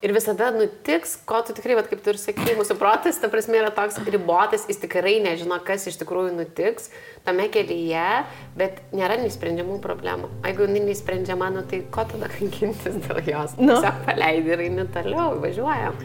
Ir visada nutiks, ko tu tikrai, kaip tu ir sakai, mūsų protas, ta prasme, yra toks ribotas, jis tikrai nežino, kas iš tikrųjų nutiks tame kelyje, bet nėra neįsprendžiamų problemų. Jeigu jinai neįsprendžiama, tai ko tada kankintis dėl jos? Tiesiog paleidi ir eini toliau, važiuojam.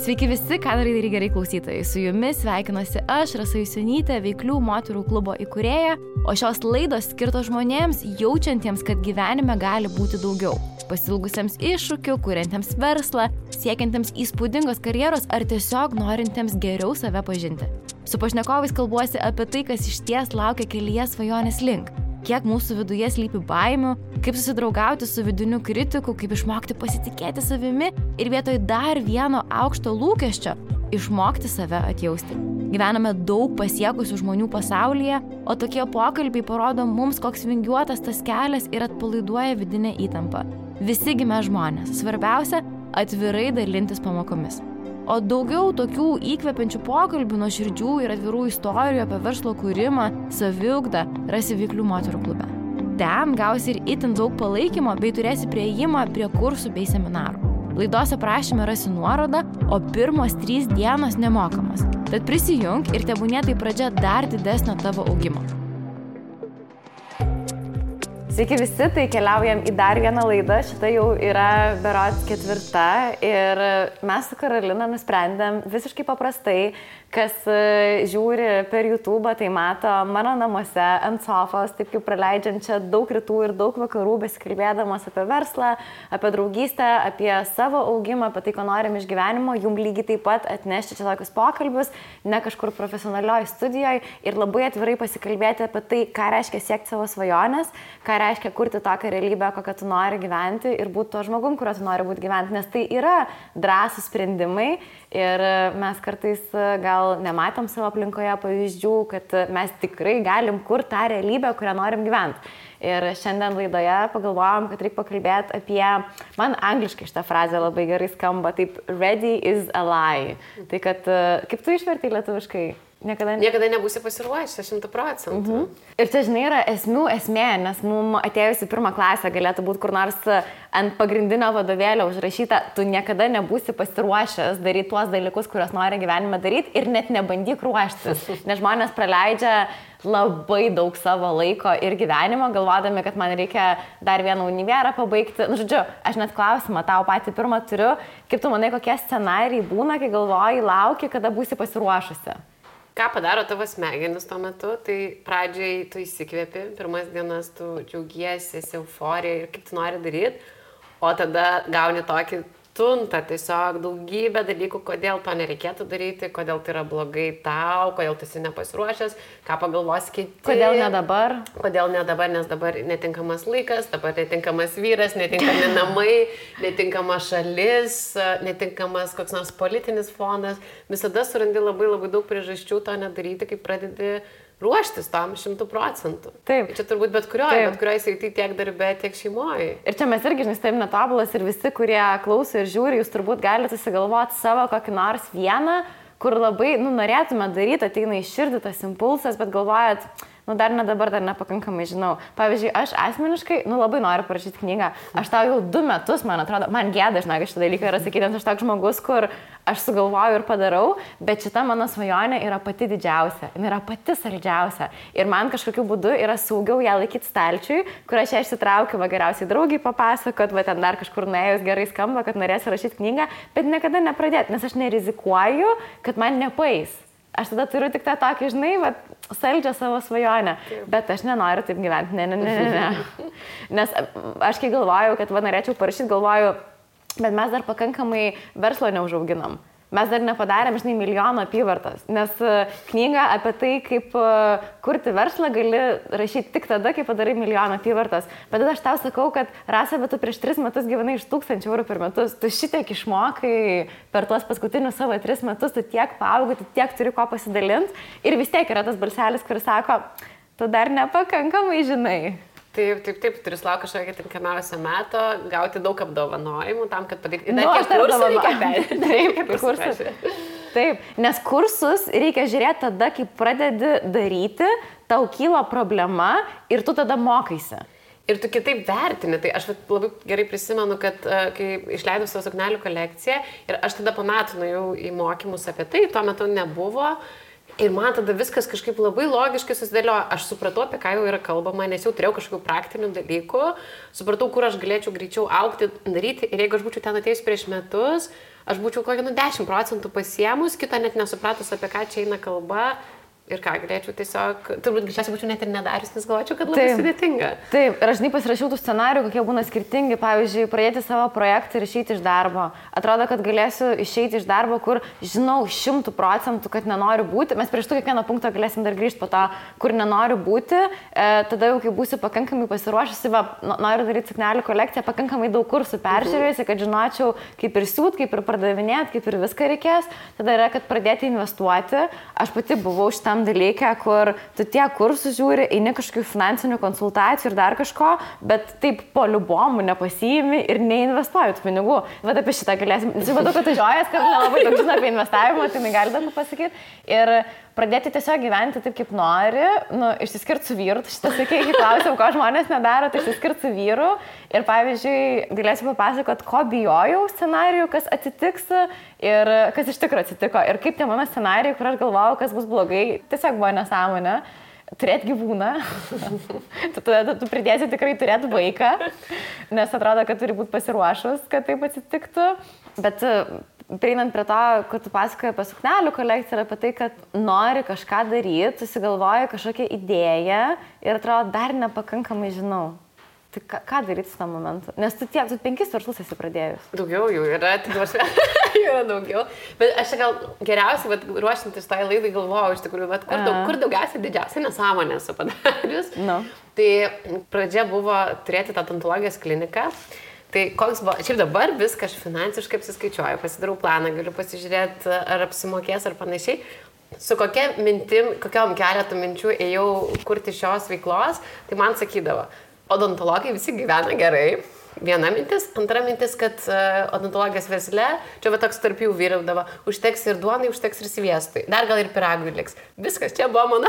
Sveiki visi, ką darai gerai klausytojai. Su jumis sveikinuosi aš, Rasa Jusionytė, Veiklių moterų klubo įkūrėja, o šios laidos skirtos žmonėms, jaučiantiems, kad gyvenime gali būti daugiau. Pasilgusiems iššūkių, kuriantiems verslą, siekiantiems įspūdingos karjeros ar tiesiog norintiems geriau save pažinti. Su pašnekovais kalbuosi apie tai, kas išties laukia kelyje svajonės link. Kiek mūsų viduje slypi baimių, kaip susidraugauti su vidiniu kritiku, kaip išmokti pasitikėti savimi ir vietoj dar vieno aukšto lūkesčio išmokti save atjausti. Gyvename daug pasiekusių žmonių pasaulyje, o tokie pokalbiai parodo mums, koks vingiuotas tas kelias ir atpalaiduoja vidinę įtampą. Visi gimę žmonės, svarbiausia – atvirai dalintis pamokomis. O daugiau tokių įkvepiančių pokalbių, nuoširdžių ir atvirų istorijų apie verslo kūrimą, saviugdą rasi Veiklių moterų klube. Ten gausi ir itin daug palaikymo bei turėsi priėjimą prie kursų bei seminarų. Laidos aprašyme rasi nuorodą, o pirmos 3 dienos nemokamos. Tad prisijunk ir tebūnie tai pradžia dar didesnio tavo augimo. Sveiki visi, tai keliaujam į dar vieną laidą, šita jau yra berods 4 ir mes su Karolina nusprendėm visiškai paprastai, kas žiūri per YouTube, tai mato mano namuose ant sofos, taip kaip praleidžiančią daug rytų ir daug vakarų, besikalbėdamas apie verslą, apie draugystę, apie savo augimą, apie tai, ko norim iš gyvenimo, jum lygiai taip pat atnešti čia tokius pokalbius, ne kažkur profesionalioj studijoje ir labai atvirai pasikalbėti apie tai, ką reiškia siekti savo svajonės, ką reiškia kurti tokią realybę, kokią tu nori gyventi ir būti to žmogum, kurio tu nori būti gyventi, nes tai yra drąsūs sprendimai ir mes kartais gal nematom savo aplinkoje pavyzdžių, kad mes tikrai galim kurti tą realybę, kurią norim gyventi. Ir šiandien laidoje pagalvojom, kad reikia pakalbėti apie, man angliškai šitą frazę labai gerai skamba, taip ready is a lie. Tai kad, kaip tu išvertai lietuviškai? Niekada nebūsi pasiruošęs 100%. Ir čia, žinai, yra esmė, nes mums atėjus į 1 klasę galėtų būti kur nors ant pagrindinio vadovėlio užrašyta, tu niekada nebūsi pasiruošęs daryti tuos dalykus, kuriuos nori gyvenime daryti ir net nebandyk ruoštis. Nes žmonės praleidžia labai daug savo laiko ir gyvenimo, galvodami, kad man reikia dar vieną univerą pabaigti. Nu, žodžiu, aš net klausimą tau patį pirmą turiu, kaip tu manai, kokie scenarijai būna, kai galvoji, lauki, kada būsi pasiruošusi. Ką padaro tavo smegenis tuo metu, tai pradžiai tu įsikvėpi, pirmas dienas tu džiaugiesi, esi euforija ir kaip tu nori daryti, o tada gauni tokį tuntą, tiesiog daugybę dalykų, kodėl to nereikėtų daryti, kodėl tai yra blogai tau, kodėl tu esi nepasiruošęs, ką pagalvos kiti. Kodėl ne dabar? Kodėl ne dabar, nes dabar netinkamas laikas, dabar netinkamas vyras, netinkami namai, netinkama šalis, netinkamas koks nors politinis fonas. Visada surandi labai daug priežasčių to nedaryti, kai pradedi ruoštis tam 100%. Taip. Čia turbūt bet kurioje srityje tiek darbe, tiek šeimoje. Ir čia mes irgi, žinai, taip netobulas ir visi, kurie klauso ir žiūri, jūs turbūt galite susigalvoti savo kokį nors vieną, kur labai, norėtume daryti, ateina į širdį tas impulsas, bet galvojat, dar ne dabar, dar nepakankamai žinau. Pavyzdžiui, aš asmeniškai, labai noriu parašyti knygą. Aš tau jau 2 metus, man atrodo, man gėda, žinai, šitą dalyką yra sakyti, nes aš toks žmogus, kur aš sugalvoju ir padarau, bet šita mano svajonė yra pati didžiausia, jinai yra pati saldžiausia. Ir man kažkokiu būdu yra saugiau ją laikyti stalčiui, kur aš ją išsitraukiu, geriausiai draugiai papasakot, va ten dar kažkur nuėjus gerai skamba, kad norėsiu rašyti knygą, bet niekada nepradėti, nes aš nerizikuoju, kad man nepaeis. Aš tada turiu tik tą tokį, žinai, saldžią savo svajonę, bet aš nenoriu taip gyventi, ne. Nes aš kai galvoju, kad norėčiau parašyti, galvoju, bet mes dar pakankamai verslo neužauginam. Mes dar nepadarėm, žinai, 1 milijono apyvartos, nes knygą apie tai, kaip kurti verslą gali rašyti tik tada, kai padarai 1 milijoną apyvartos. Bet tada aš tau sakau, kad Rasa, bet tu prieš 3 metus gyvenai iš 1000 eurų per metus, tu šitiek išmokai per tuos paskutinius savo 3 metus, tu tiek paaugai, tu tiek turi ko pasidalinti ir vis tiek yra tas balselis, kuris sako, tu dar nepakankamai žinai. Taip, turi laukti kažkokią tinkamiausią metą, gauti daug apdovanojimų tam, kad padaryti. Dar kiek kursų reikia perėti. Taip, nes kursus reikia žiūrėti tada, kai pradedi daryti, tau kyla problema ir tu tada mokaisi. Ir tu kitaip vertini, tai aš labai gerai prisimenu, kad kai išleidau savo suknelių kolekciją ir aš tada po metų nuėjau į mokymus apie tai, tuo metu nebuvo ir man tada viskas kažkaip labai logiškai susidėliojo, aš supratau, apie ką jau yra kalbama, nes jau turėjau kažkokių praktinių dalykų, supratau, kur aš galėčiau greičiau augti, daryti ir jeigu aš būčiau ten atėjus prieš metus, aš būčiau kokį 10% pasiemus, kitą net nesupratus, apie ką čia eina kalba. Ir ką, galėčiau tiesiog, turbūt greičiausiai būčiau net ir nedarius, nes galvočiau, kad labai sudėtinga. Taip, ir aš žinai pasirašiau tų scenarijų, kokie būna skirtingi, pavyzdžiui, pradėti savo projektą ir išeiti iš darbo. Atrodo, kad galėsiu išeiti iš darbo, kur žinau 100%, kad nenoriu būti. Mes prieš kiekvieną punktą galėsim dar grįžti po to, kur nenoriu būti. Tada jau, kai būsiu pakankamai pasiruošusi, noriu daryti suknelių kolekciją, pakankamai daug kursų peržiūrėjusi, kad žinočiau, kaip ir siūt, kaip ir pardavinėti, kaip ir viską reikės. Tada yra, kad pradėti investuoti. Aš pati buvau šitam dalykę, kur tu tiek kursų žiūri, eini kažkokių finansinių konsultacijų ir dar kažko, bet taip po liubomų nepasiimi ir neinvestuoji tų pinigų. Vat apie šitą galėsim. Matau, kad tu žiojas, kad nelabai daug žino apie investavimą, tai negali daug pasakyti. Ir pradėti tiesiog gyventi taip, kaip nori, išsiskirti su vyru. Šitą sakė, kai klausiau, ko žmonės nedaro, tai išsiskirti su vyru. Ir pavyzdžiui, galėsiu papasakoti, ko bijojau scenarijų, kas atsitiks ir kas iš tikrųjų atsitiko. Ir kaip tie mano scenarijai, kur aš galvojau, kas bus blogai, tiesiog buvo nesąmonė. Turėti gyvūną. tu pridėsi tikrai turėti vaiką, nes atrodo, kad turi būti pasiruošus, kad taip atsitiktų. Bet prieinant prie to, kad tu pasakoji apie suknelių kolekciją ir apie tai, kad nori kažką daryti, susigalvoji kažkokią idėją ir atrodo, dar nepakankamai žinau. Tai ką daryti su tam momentu? Nes tu 5 verslus esi pradėjus. Daugiau jų yra, jų yra daugiau. Bet aš gal geriausiai, ruošintis tai laidai, galvojau iš tikrųjų, kur daugiausiai didžiausia nesąmonė esu padarius. No. Tai pradžia buvo turėti tą odontologijos kliniką. Tai koks buvo, šiaip dabar viską aš finansiškai apsiskaičiuoju, pasidarau planą, galiu pasižiūrėti, ar apsimokės ar panašiai. Su kokiom keletų minčių ėjau kurti šios veiklos, tai man sakydavo, odontologai visi gyvena gerai. Viena mintis, antra mintis, kad odontologijos versle, čia va toks tarp jų vyraudavo, užteks ir duonai, užteks ir sviestui, dar gal ir piragui liks. Viskas, čia buvo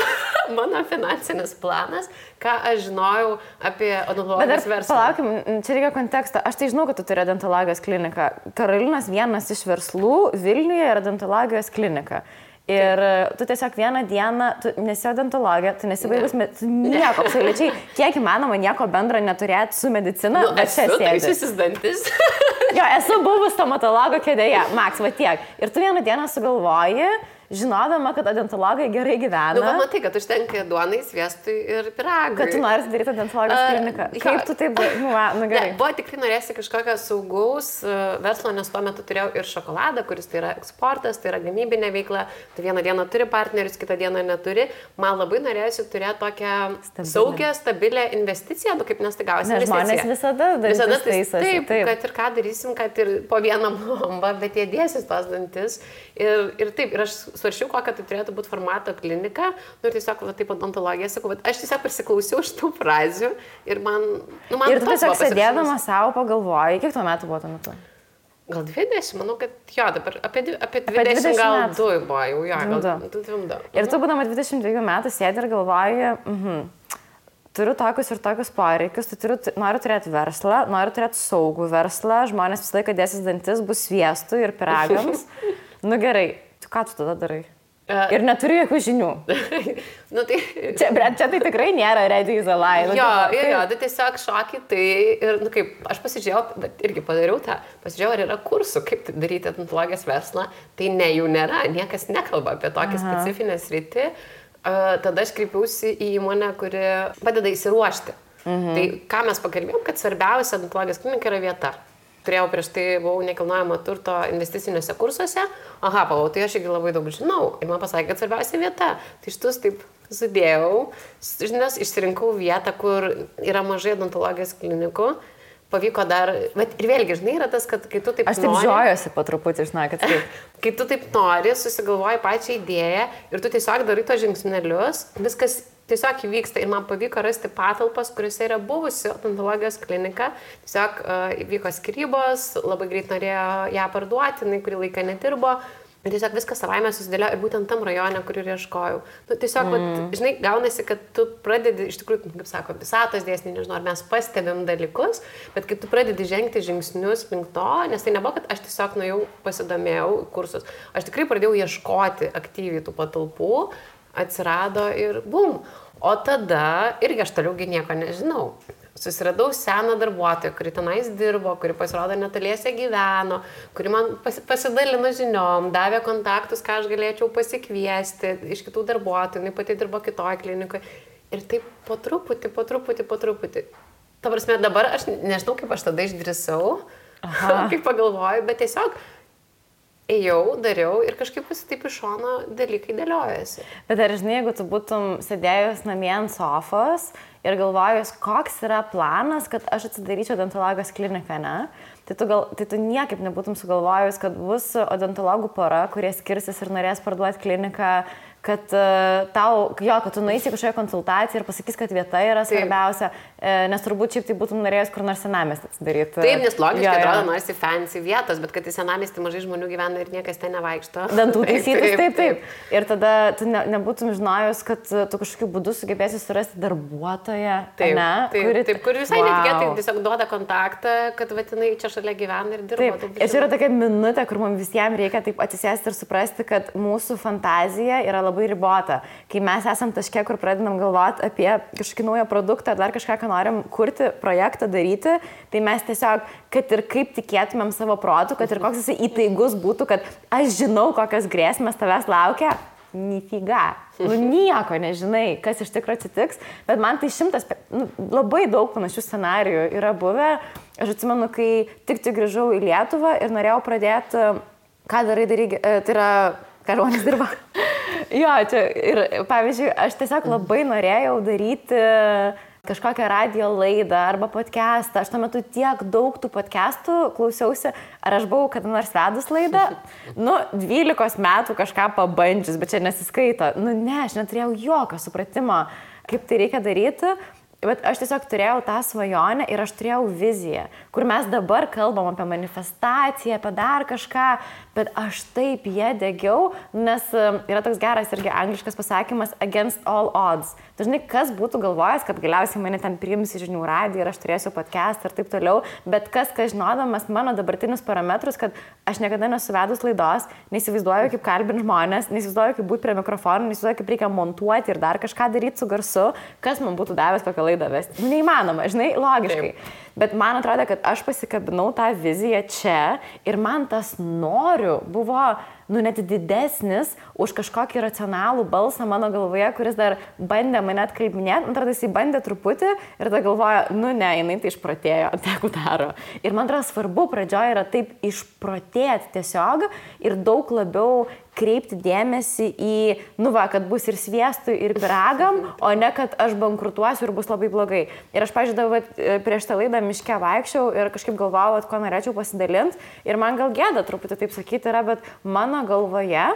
mano finansinis planas, ką aš žinojau apie odontologijos verslą. Palaukim, čia reikia konteksto. Aš tai žinau, kad tu turi odontologijos kliniką. Karolinos vienas iš verslų Vilniuje yra odontologijos klinika. Ir tu tiesiog vieną dieną, tu nesi odontologė, tu nesi baigus, tu nieko, absoliučiai, kiek įmanoma nieko bendro neturėti su medicina, bet čia sėdi. Taisiusis dantis. Jo, esu buvus stomatologo kėdėje, Maks, va tiek. Ir tu vieną dieną sugalvoji, žinodama, kad odontologai gerai gyvena. Matai, kad užtenka duonai, sviestui ir piragui. Kad tu nori daryti odontologijos kliniką. Kaip tu taip, gerai. Buvo tikrai norėsi kažkokio saugaus verslo, nes tuo metu turėjau ir šokoladą, kuris tai yra eksportas, tai yra gamybinė veikla. Tu vieną dieną turi partnerius, kitą dieną neturi. Man labai norėsi turėti tokią saugią, stabilę investiciją, kaip nes tai gausi investiciją. Žmonės visada taisosi. Taip, kad ir ką darysim, kad ir po vieną bombą, bet jie dėsis tos dantis. Ir taip, ir aš svaršiau, kokia tai turėtų būti formato klinika, ir tiesiog, taip, odontologija, sakau, bet aš tiesiog prisiklausiau šitų frazių ir man ir tu tiesiog sėdėdama savo pagalvojai, kiek tuo metu buvo tuo metu? Gal 20, manau, kad jo, dabar apie 20 gal metų. 2 buvo, jau jo, gal 2. Ir tu būdama 22 metų sėdi ir galvoji, turiu tokius ir tokius poreikius, noriu turėti verslą, noriu turėti saugų verslą, žmonės visą laiką dėsis dantis, bus sviestų ir piragams. Gerai, ką tu tada darai? Ir neturi jokių žinių. Tai... čia tai tikrai nėra ready is a lie. Tai tiesiog šoki, tai ir, kaip, aš pasižiūrėjau, bet irgi padariau tą, pasižiūrėjau, ar yra kursų, kaip daryti odontologijos verslą, tai ne, jų nėra, niekas nekalba apie tokią specifinę sritį. Tada aš kreipiausi į įmonę, kuri padeda įsiruošti. Tai ką mes pakalbėjom, kad svarbiausia odontologijos klinika yra vieta. Turėjau prieš tai, buvau nekilnojamo turto investiciniuose kursuose. Tai aš irgi labai daug žinau. Ir man pasakė, kad svarbiausia vieta. Tai šitus taip sudėjau, žinias, išsirinkau vietą, kur yra mažai odontologijos klinikų. Pavyko dar, bet ir vėlgi, žinai, yra tas, kad kai tu taip nori... Aš taip žiojuosi po truputį, žinai, kad taip. Kai tu taip nori, susigalvoji pačią idėją ir tu tiesiog darai tos žingsnelius, viskas tiesiog įvyksta ir man pavyko rasti patalpas, kuriuose yra buvusi odontologijos klinika. Tiesiog įvyko skyrybos, labai greit norėjo ją parduoti, jinai kurį laiką nedirbo. Ir tiesiog viskas savaime susidėlio ir būtent tam rajone, kur ir ieškojau. Nu, tiesiog, žinai, gaunasi, kad tu pradedi, iš tikrųjų, kaip sako, visatos dėsniai, nežinau, ar mes pastebim dalykus, bet kai tu pradedi žengti žingsnius link to, nes tai nebuvo, kad aš tiesiog nuėjau, pasidomėjau kursus, aš tikrai pradėjau ieškoti aktyviai tų patalpų, atsirado ir bum. O tada irgi aš toliaugi nieko nežinau. Susiradau seną darbuotoją, kuri tenais dirbo, kuri pasirodo netoliese gyveno, kuri man pasidalino žiniom, davė kontaktus, ką aš galėčiau pasikviesti iš kitų darbuotojų, jinai pati dirbo kitoj klinikoje. Ir taip po truputį. Ta prasme, dabar aš nežinau, kaip aš tada išdrįsau, kaip pagalvoju, bet tiesiog ėjau, dariau ir kažkaip taip iš šono dalykai dėliojasi. Bet ar žinai, jeigu tu būtum sėdėjus namie ant sofos ir galvojus, koks yra planas, kad aš atsidaryčiau odontologijos kliniką, ne? Tai tu niekaip nebūtum sugalvojus, kad bus odontologų pora, kurie skirsis ir norės parduoti kliniką, kad kad tu nueisi kažkokią konsultaciją ir pasakys, kad vieta yra svarbiausia, nes turbūt šiaip tai būtum norėjus kur nors senamiestį atsidaryti. Taip, nes logiškai atrodo, norisi fancy vietos, bet kad į senamiestį mažai žmonių gyvena ir niekas ten nevaikšto. Dantų taisytis, taip. Ir tada tu nebūtum žinojus, kad tu kažkokiu būdu sugebėsi surasti darbuotoją, kur visai netikėtai tiesiog duoda kontaktą, kad vatinai čia šalia gyvena ir dirba. Taip, ir čia yra tokia minutė, kur mums visiems reikia taip atsisėsti ir suprasti, kad mūsų fantazija yra labai ribota. Kai mes esam taške, kur pradedam galvoti apie kažkokį naują produktą ar dar kažką, ką norim kurti, projektą daryti, tai mes tiesiog, kad ir kaip tikėtumėm savo protų, kad ir koks jisai įtaigus būtų, kad aš žinau, kokios grėsmės tavęs laukia, nifiga. Nieko nežinai, kas iš tikrųjų atsitiks, bet man tai labai daug panašių scenarijų yra buvę. Aš atsimenu, kai tik grįžau į Lietuvą ir norėjau pradėti, ką darai, tai yra, ką žmonės dirba. Jo, čia ir pavyzdžiui, aš tiesiog labai norėjau daryti kažkokią radio laidą arba podcastą. Aš tuo metu tiek daug tų podcastų klausiausi, ar aš buvau kada nors vedus laidą. 12 metų kažką pabandžius, bet čia nesiskaito. Ne, aš neturėjau jokio supratimo, kaip tai reikia daryti. Bet aš tiesiog turėjau tą svajonę ir aš turėjau viziją, kur mes dabar kalbam apie manifestaciją, apie dar kažką, bet aš taip ją degiau, nes yra toks geras irgi angliškas pasakymas against all odds. Dažnai kas būtų galvojęs, kad galiausiai mane ten priims į žinių radiją ir aš turėsiu podcastą ir taip toliau, bet kas žinodamas mano dabartinius parametrus, kad aš niekada nesuvedus laidos, neįsivaizduoju, kaip kalbinti žmonės, neįsivaizduoju, kaip būti prie mikrofono, neįsivaizduoju, kaip reikia montuoti ir dar kažką daryti su garsu, kas man būtų davęs kokią laidą vesti. Neįmanoma, žinai, logiškai. Taip. Bet man atrodo, kad aš pasikabinau tą viziją čia ir man tas noriu buvo net didesnis už kažkokį racionalų balsą mano galvoje, kuris dar bandė mane atkalbinėti. Man atrodo, jisai bandė truputį ir tada galvoja, ne, jinai tai išprotėjo, tegu daro. Ir man atrodo, svarbu pradžioje yra taip išprotėti tiesiog ir daug labiau kreipti dėmesį į, kad bus ir sviestui, ir pyragam, o ne, kad aš bankrutuosiu ir bus labai blogai. Ir aš, pažiūrėjau, prieš tą laidą miške vaikščiau ir kažkaip galvojau, ko norėčiau pasidalinti. Ir man gal gėda truputį taip sakyti yra, bet mano galvoje,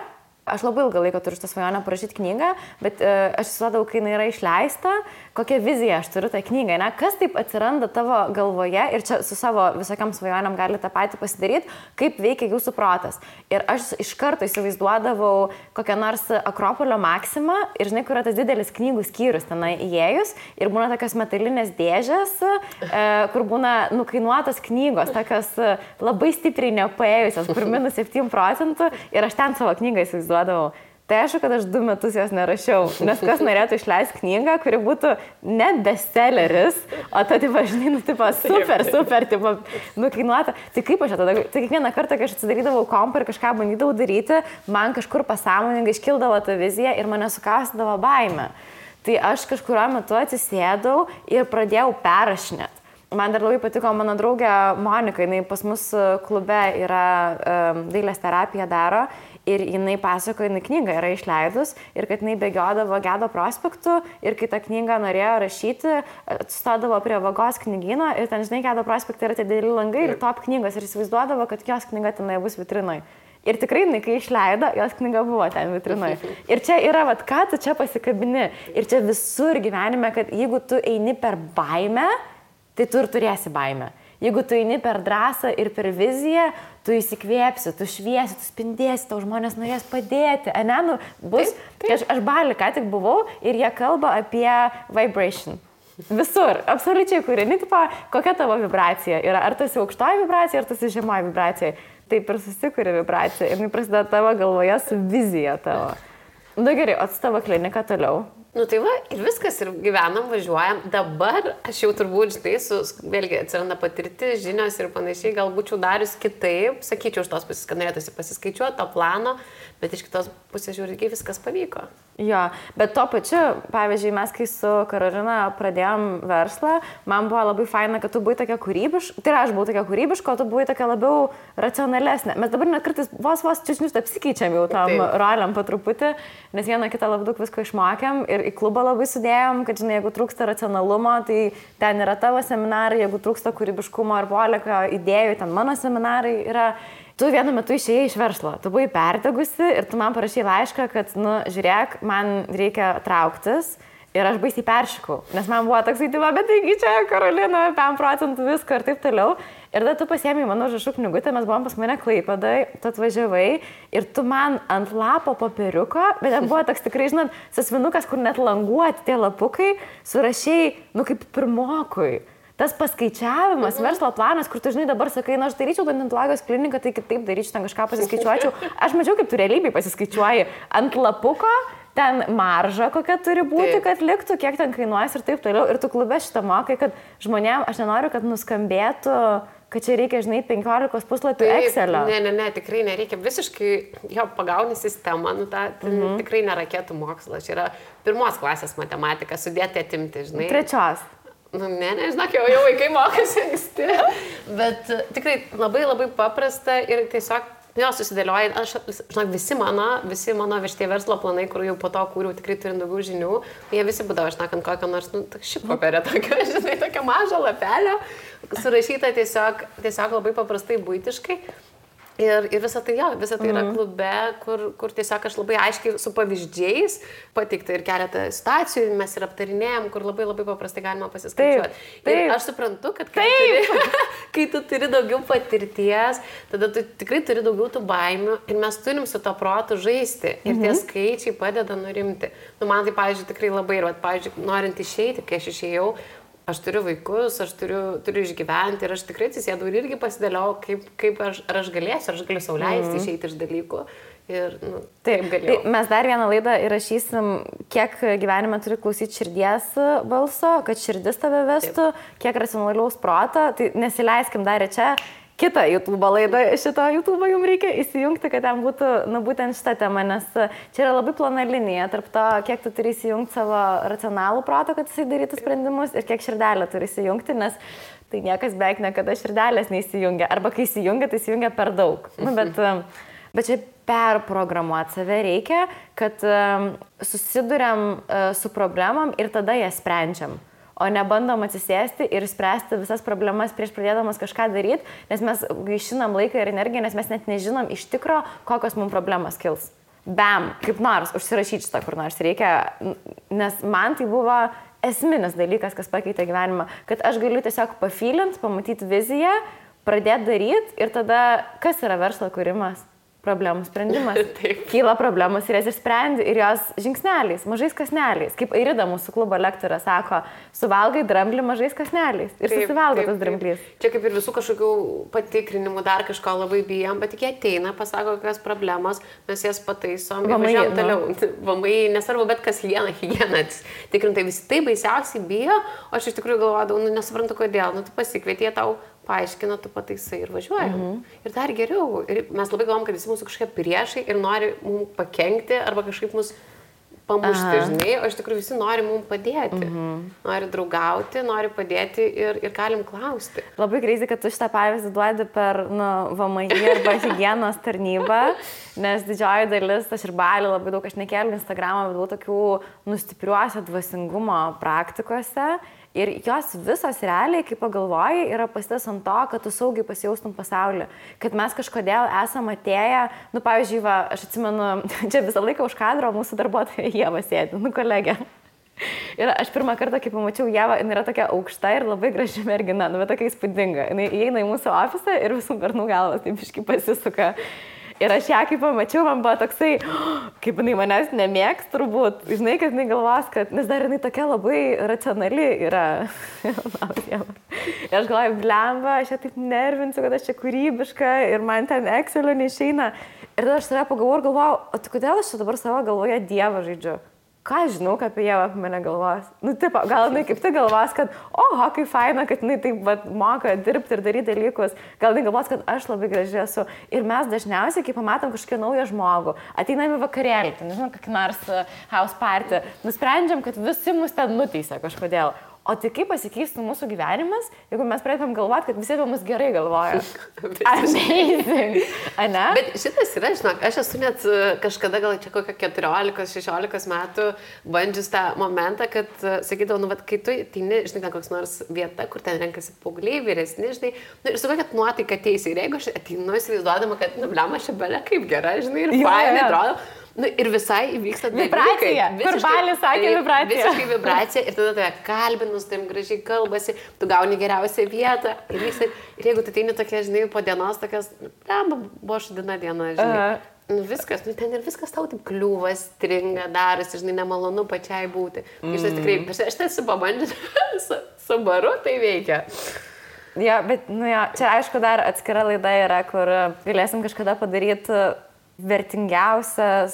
aš labai ilgą laiką turiu šitą svajonę parašyti knygą, bet aš įsivaizduodavau, kai jinai yra išleista, kokią viziją aš turiu tą knygą, ne? Kas taip atsiranda tavo galvoje ir čia su savo visokiam svajonėm gali tą patį pasidaryti, kaip veikia jūsų protas. Ir aš iš karto įsivaizduodavau kokią nors Akropolio Maksimą ir žinai, kur yra tas didelis knygų skyrius tenai įėjus ir būna tokios metalinės dėžės, kur būna nukainuotos knygos, tokios labai stipriai nepaėjusios, kur -7% ir aš ten savo knygą įsivaizduodavau. Tai aišku, kad aš 2 metus jos nerašiau, nes kas norėtų išleisti knygą, kuri būtų ne bestselleris, o ta, žinai, super, nukainuota. Tai kaip aš tada, tai kiekvieną kartą, kai aš atsidarydavau kompą ir kažką bandydavau daryti, man kažkur pasąmoningai iškildavo ta vizija ir mane sukaustydavo baimė. Tai aš kažkurio metu atsisėdau ir pradėjau perrašinėti. Man dar labai patiko mano draugė Monika, jinai pas mus klube yra dailės terapija daro ir jinai pasakoja, jinai knygą yra išleidus ir kad jinai bėgiodavo Gedo prospektu ir kai tą knygą norėjo rašyti, atsistodavo prie Vagos knygyno ir ten, žinai, Gedo prospektai yra tie dideli langai ir top knygos ir įsivaizduodavo, kad jos knyga tenai bus vitrinoj. Ir tikrai, kai išleido, jos knyga buvo ten vitrinoj. Ir čia yra, ką tu čia pasikabini. Ir čia visur gyvenime, kad jeigu tu eini per baimę, tai tu ir turėsi baimę. Jeigu tu eini per drąsą ir per viziją, tu įsikvėpsi, tu šviesi, tu spindėsi, tau žmonės norės padėti. Ane, nu, bus. Aš Bali ką tik buvau ir jie kalba apie vibration. Visur, absoliučiai, kurini, tipo, kokia tavo vibracija yra. Ar tas aukštoji vibracija, ar tas žemoji vibracija. Taip ir susikuri vibracija. Ir prasideda tavo galvoje su vizija tavo. Nu gerai, o su tavo klinika toliau. Nu tai va, ir viskas, ir gyvenam, važiuojam. Dabar aš jau turbūt, žinai, vėlgi atsiranda patirtis, žinios ir panašiai, gal būčiau darius kitaip, sakyčiau, iš tos pusės, kad norėtųsi pasiskaičiuoti to plano, bet iš kitos pusės žiūrėkiai viskas pavyko. Jo, bet tuo pačiu, pavyzdžiui, mes kai su Karolina pradėjom verslą, man buvo labai faina, kad tu buvai tokia kūrybiška, tai aš buvau tokia kūrybiška, o tu buvai tokia labiau racionalesnė. Mes dabar net kartais vos čiūsnius apsikeičiam jau tam roliam po truputį, nes vieną kitą labai daug visko išmokėm ir į klubą labai sudėjom, kad, žinai, jeigu trūksta racionalumo, tai ten yra tavo seminarai, jeigu trūksta kūrybiškumo ar polėkio idėjų, ten mano seminarai yra. Tu vienu metu išėjai iš verslo, tu buvai perdegusi ir tu man parašei laišką, kad, nu, žiūrėk, man reikia trauktis ir aš baisiai peršikau, nes man buvo toks įtima, bet taigi čia Karolina, 5% visko ir taip toliau. Ir tada tu pasiėmei mano užrašų knygutę, mes buvom pas mane Klaipėdoj, tu atvažiavai ir tu man ant lapo popieriuko, bet ten buvo toks tikrai, žinot, sasvinukas, kur net languoti tie lapukai, surašei, nu, kaip pirmokui. Tas paskaičiavimas, verslo planas, kur tu, žinai, dabar sakai, na, aš daryčiau odontologijos kliniką, tai kitaip daryčiau, ten kažką pasiskaičiuočiau. Aš mačiau, kaip tu realybėj pasiskaičiuoji ant lapuko, ten marža kokia turi būti, kad liktų, kiek ten kainuojas ir taip toliau. Ir tu klube šitą mokai, kad žmonėm, aš nenoriu, kad nuskambėtų, kad čia reikia, žinai, 15 puslapių Excelio. Ne, tikrai nereikia. Visiškai jo pagauni sistemą, nu, tikrai nėra raketų mokslas. Čia yra 1 klasės matematika, sudėti atimti, žinai. 3. Nu, žinok, jau vaikai mokosi anksti, bet tikrai labai paprasta ir tiesiog jo susidėlioja, žinok, visi mano šitie verslo planai, kur jau po to kūriau, tikrai turint daugiau žinių, jie visi būdavo, šnekant kokią nors, nu, šį papirę tokią, žinai, tokią mažą lapelę, surašyta tiesiog labai paprastai, buitiškai. Ir visa tai yra klube, kur tiesiog aš labai aiškiai su pavyzdžiais pateikta ir keletą situacijų mes ir aptarinėjom, kur labai paprastai galima pasiskaičiuoti. Ir aš suprantu, kad kai tu turi daugiau patirties, tada tu tikrai turi daugiau tų baimių ir mes turim su to protu žaisti ir tie skaičiai padeda nurimti. Nu, man tai, pavyzdžiui, tikrai labai, ir, pavyzdžiui, norint išeiti, kai aš išėjau, aš turiu vaikus, aš turiu išgyventi ir aš tikrai atsisėdau ir irgi pasidėliau, kaip aš galėsiu, aš galiu sau leisti išeiti iš dalykų. Ir, nu, taip galėjau. Mes dar vieną laidą įrašysim, kiek gyvenime turi klausyti širdies balso, kad širdis tave vestų, kiek racionalaus proto, tai nesileiskim dar čia. Kitą YouTube laidą, šito YouTube jums reikia įsijungti, kad ten būtų, nu, būtent šitą temą, nes čia yra labai plona linija tarp to, kiek tu turi įsijungti savo racionalų protą, kad jisai darytų sprendimus ir kiek širdelę turi įsijungti, nes tai niekas beveik niekada širdelės neįsijungia, arba kai įsijungia, tai įsijungia per daug. Nu, bet čia perprogramuoti save reikia, kad susiduriam su problemam ir tada jas sprendžiam. O nebandom atsisėsti ir spręsti visas problemas prieš pradėdamas kažką daryti, nes mes gaišinam laiką ir energiją, nes mes net nežinom iš tikro, kokios mums problemos kils. Bam, kaip nors, užsirašyti šitą kur nors reikia, nes man tai buvo esminis dalykas, kas pakeitė gyvenimą, kad aš galiu tiesiog pafylint, pamatyti viziją, pradėti daryti ir tada, kas yra verslo kūrimas? Problemų sprendimas. Kyla problemos ir jas išsprendi ir jos žingsneliais, mažais kasneliais. Kaip Airida mūsų klubo lektorė sako, suvalgai dramblį mažais kasneliais ir susivalgo tas dramblys. Čia kaip ir visų kažkokių patikrinimų, dar kažko labai bijom, bet tik jie ateina, pasako, kokios problemos, mes jas pataisom ir važiuojam toliau. Vamai, nesvarbu, bet kas higiena. Tikrintai visi tai baisiausiai bijo, o aš iš tikrųjų galvodavau, nu nesuprantu kodėl, nu tu pasikvietė tau, paaiškina, tu pataisai ir važiuojam. Ir dar geriau. Ir mes labai galvom, kad visi mūsų kažkokie priešai ir nori mums pakenkti arba kažkaip mus pamušti, žinai, o iš tikrųjų visi nori mums padėti. Nori draugauti, nori padėti ir galim klausti. Labai crazy, kad tu šitą pavyzdį duodi per VMI arba higienos tarnybą, nes didžioji dalis, aš ir Bali labai daug, aš nekėliu Instagramą, bet buvau tokių nustipriuose dvasingumo praktikose. Ir jos visos realiai, kaip pagalvoji, yra pasitas ant to, kad tu saugiai pasijaustum pasaulį. Kad mes kažkodėl esam atėję, nu, pavyzdžiui, aš atsimenu, čia visą laiką už kadro mūsų darbuotoja Ieva sėdi, kolegė. Ir aš pirmą kartą, kai pamačiau Ievą, jinai yra tokia aukšta ir labai graži mergina, nu, bet tokia įspūdinga. Jinai įeina į mūsų ofisą ir visų bernų galvas taip iškai pasisuka. Ir aš ją, kai pamačiau, man buvo toksai, kaip jinai manęs nemėgs turbūt. Žinai, kad jinai galvos, kad, nes dar jinai tokia labai racionali yra. Ir aš galvoju, blemba, aš ją taip nervinsiu, kad aš čia kūrybiška ir man ten Excelio neišeina. Ir tada aš save pagalvojau ir galvojau, o tai kodėl aš čia dabar savo galvoje Dievą žaidžiu? Ką aš žinau, apie Ievą apie mane galvos? Nu, taip, gal jinai kaip tai galvos, kad, oho, kaip faina, kad jinai taip moka dirbti ir daryti dalykus. Gal jinai galvos, kad aš labai graži esu. Ir mes dažniausiai, kai pamatom kažkokį naują žmogų, ateinam į vakarėlį, tai nežinau, kokį nors house party, nusprendžiam, kad visi mus ten nuteisia kažkodėl. O tai kaip pasikeistų mūsų gyvenimas, jeigu mes pradėtum galvoti, kad visi apie mus gerai galvoja? Amazing. Ane? Bet šitas yra, žinok, aš esu net kažkada gal čia kokią 14-16 metų bandžius tą momentą, kad sakydavau, nu, kai tu ateini, žinai, ten koks nors vieta, kur ten renkasi paaugliai, vyresni, žinai, nu, ir su kokia nuotaika teisė. Ir jeigu aš ateinu įsivaizduodama, kad, nu, blema, aš belia kaip gera, žinai, ir fainai atrodo. Nu, ir visai įvyksta vibracija. Kur Balis sakė vibracija. Visiškai vibracija ir tada tave kalbinus, taip gražiai kalbasi, tu gauni geriausią vietą. Ir jeigu tu ateini tokia, žinai, po dienos tokias, buvo šudina diena, žinai. Nu, viskas, nu, ten ir viskas tau taip kliūvas, stringa, darosi, žinai, nemalonu pačiai būti. Iš tikrai, aš esu pabandžius su baru, tai veikia. Jo, bet, nu jo, čia aišku dar atskira laida yra, kur galėsim kažkada padaryti vertingiausias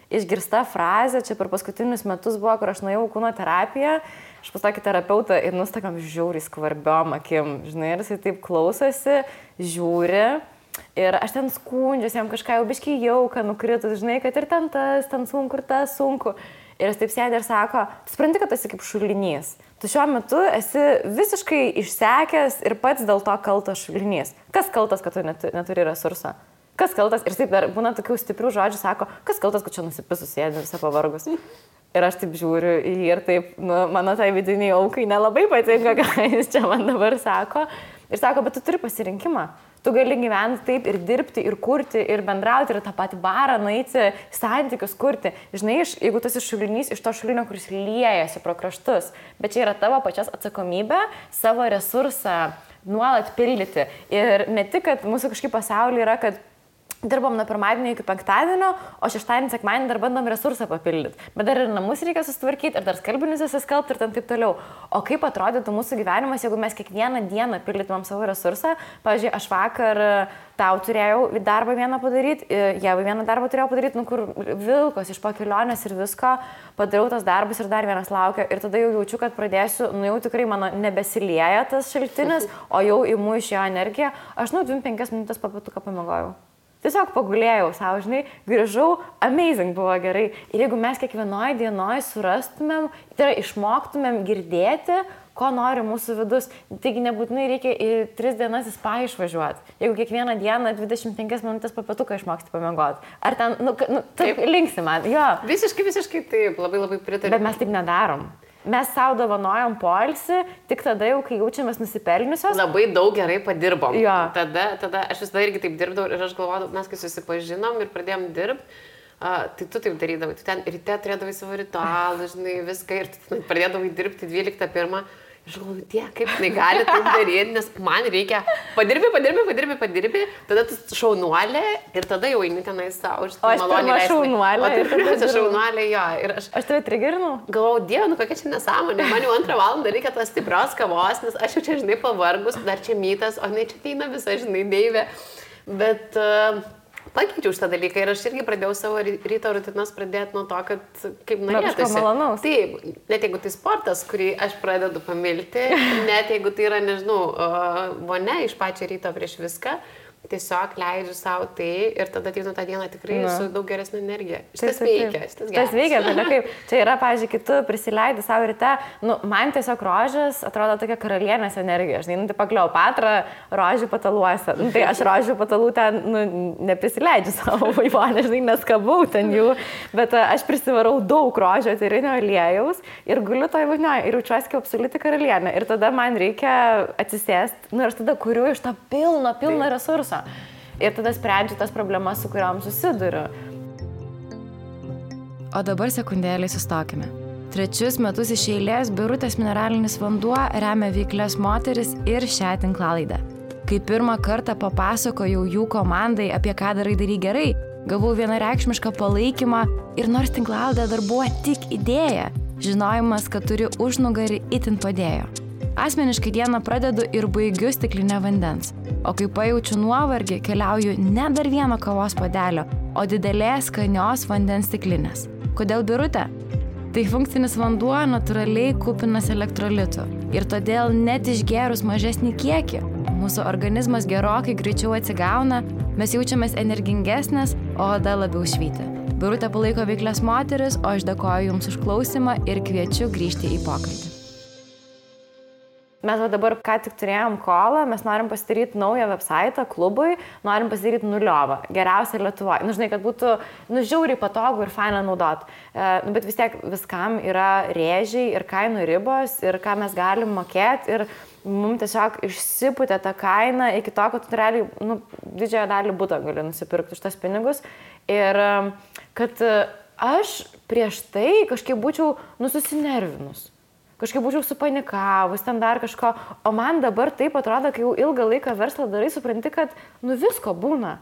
išgirsta frazė, čia per paskutinius metus buvo, kur aš nuėjau kūno terapiją, aš pas tokį terapeutą ir nustakam žiauriai skvarbiom akim, žinai, ir jisai taip klausosi, žiūri ir aš ten skundžiuosi, jam kažką jau biškai jauka nukritus, žinai, kad ir ten tas, ten sunku ir tas sunku. Ir jis taip sėdė ir sako, tu supranti, kad tu esi kaip šulinys. Tu šiuo metu esi visiškai išsekęs ir pats dėl to kaltas šulinys. Kas kaltas, kad tu neturi resursą? Kas kaltas? Ir taip dar būna tokių stiprių žodžių, sako, kas kaltas, kad čia nusipisus sėdė visą pavargus. Ir aš taip žiūriu į jį ir taip, nu, mano tai vidiniai aukai nelabai patinka, ką jis čia man dabar sako. Ir sako, bet tu turi pasirinkimą. Tu gali gyventi taip ir dirbti, ir kurti, ir bendrauti, ir tą patį barą nueiti, santykius kurti. Žinai, jeigu tu esi šulinys iš to šulinio, kuris liejasi pro kraštus, bet čia yra tavo pačios atsakomybė savo resursą nuolat pildyti. Ir ne tik, kad mūsų kažkaip pasaulyje yra, kad dirbam nuo pirmadienio iki penktadienio, o šeštadienį, sekmadienį dar bandom resursą papildyti. Bet dar ir namus reikia susitvarkyti, ir dar skalbinius įsiskalbti ir taip toliau. O kaip atrodytų mūsų gyvenimas, jeigu mes kiekvieną dieną pildytumėm savo resursą? Pavyzdžiui, aš vakar tau turėjau darbą vieną padaryti, Ievai vieną darbą turėjau padaryti, nu kur vilkos iš po kelionės ir visko, padariau tas darbus ir dar vienas laukia. Ir tada jau jaučiu, kad pradėsiu, nu jau tikrai mano nebesilieja tas šaltinis, o jau imu iš jo energiją. Aš 25 minutės papatuką pamiegojau. Tiesiog pagulėjau savo, žinai, grįžau, amazing buvo gerai. Ir jeigu mes kiekvienoje dienoje surastumėm, tai yra išmoktumėm girdėti, ko nori mūsų vidus, taigi nebūtinai reikia į 3 dienas į spa išvažiuoti. Jeigu kiekvieną dieną 25 minutės papatuką išmoksti pamiegoti. Ar ten, taip linksi man, jo. Visiškai taip, labai pritariu. Bet mes taip nedarom. Mes savo dovanojom poilsį tik tada jau, kai jaučiamės nusipelniusios. Labai daug gerai padirbom. Jo. Tada aš visada irgi taip dirbdavau ir aš galvodavau, mes kai susipažinom ir pradėjom dirbti, tai tu taip darydavai. Tu ten ryte turėdavai savo ritualą, žinai, viską ir tu pradėdavai dirbti 12:01. Aš galvoju, kaip jinai gali taip daryti, nes man reikia padirbi, tada tu šaunuolė ir tada jau eini tenai savo. O aš pirma šaunuolė. O tai pirmiausia šaunuolė, jo. Ir aš tave trigerinu? Galvojau, Dieve, kokia čia nesąmonė, man jau 2 valandą reikia tos stiprios kavos, nes aš jau čia, žinai, pavargus, dar čia mytas, o ne čia ateina visa, žinai, deivė. Bet pakeičiau šitą dalyką ir aš irgi pradėjau savo ryto rutinas pradėti nuo to, kad kaip norėtųsi. Kažko malonaus. Taip, net jeigu tai sportas, kurį aš pradedu pamilti, net jeigu tai yra, nežinau, vonia iš pačio ryto prieš viską, tiesiog leidžiu savo tai ir tada ateinu tą dieną tikrai su daug geresnė energija. Šitas veikia, šitas geras. Tas veikia, bet kaip, čia yra, pavyzdžiui, kai tu prisileidi savo ryte, man tiesiog rožės atrodo tokia karalienės energija. Žinai, tai Kleopatra rožių pataluose. Tai aš rožių patalų ten, neprisileidžiu savo vaivonę, žinai, neskabau ten jų, bet aš prisivarau daug rožio etyrinio aliejaus ir guliu toj vonioje ir jaučiuosi kaip absoliuti karalienė. Ir tada man reikia atsisėsti, ir aš tada kuriu iš to pilno resursų. Ir tada sprendžiu tas problemas, su kuriam susiduriu. O dabar sekundėlį sustokime. Trečius metus iš eilės Birutės mineralinis vanduo remia veiklias moteris ir šią tinklalaidę. Kai pirmą kartą papasakojau jų komandai, apie ką darai gerai, gavau vienareikšmišką palaikymą ir nors tinklalaidė dar buvo tik idėja, žinojimas, kad turi užnugarį itin padėjo. Asmeniškai dieną pradedu ir baigiu stiklinę vandens, o kai pajaučiu nuovargį, keliauju ne dar vieno kavos puodelio, o didelės skanios vandens stiklinės. Kodėl Birutė? Tai funkcinis vanduo natūraliai kupinas elektrolitų ir todėl net išgėrus mažesnį kiekį, mūsų organizmas gerokai greičiau atsigauna, mes jaučiamės energingesnės, o oda labiau švyti. Birutė palaiko veiklias moteris, o aš dėkoju Jums už klausimą ir kviečiu grįžti į pokalbį. Mes dabar ką tik turėjom kolą, mes norim pasidaryti naują website klubui, norim pasidaryti nuliovą, geriausia Lietuvoje. Žinai, kad būtų žiauriai patogu ir faina naudot. Bet vis tiek viskam yra rėžiai ir kainų ribos ir ką mes galim mokėti ir mums tiesiog išsipūtė tą kainą iki to, kad tu realiai didžiąją dalį butą gali nusipirkti už tas pinigus. Ir kad aš prieš tai kažkaip būčiau susinervinus. Kažkaip būčiau supanikavus, ten dar kažko, o man dabar taip atrodo, kai jau ilgą laiką verslą darai, supranti, kad visko būna.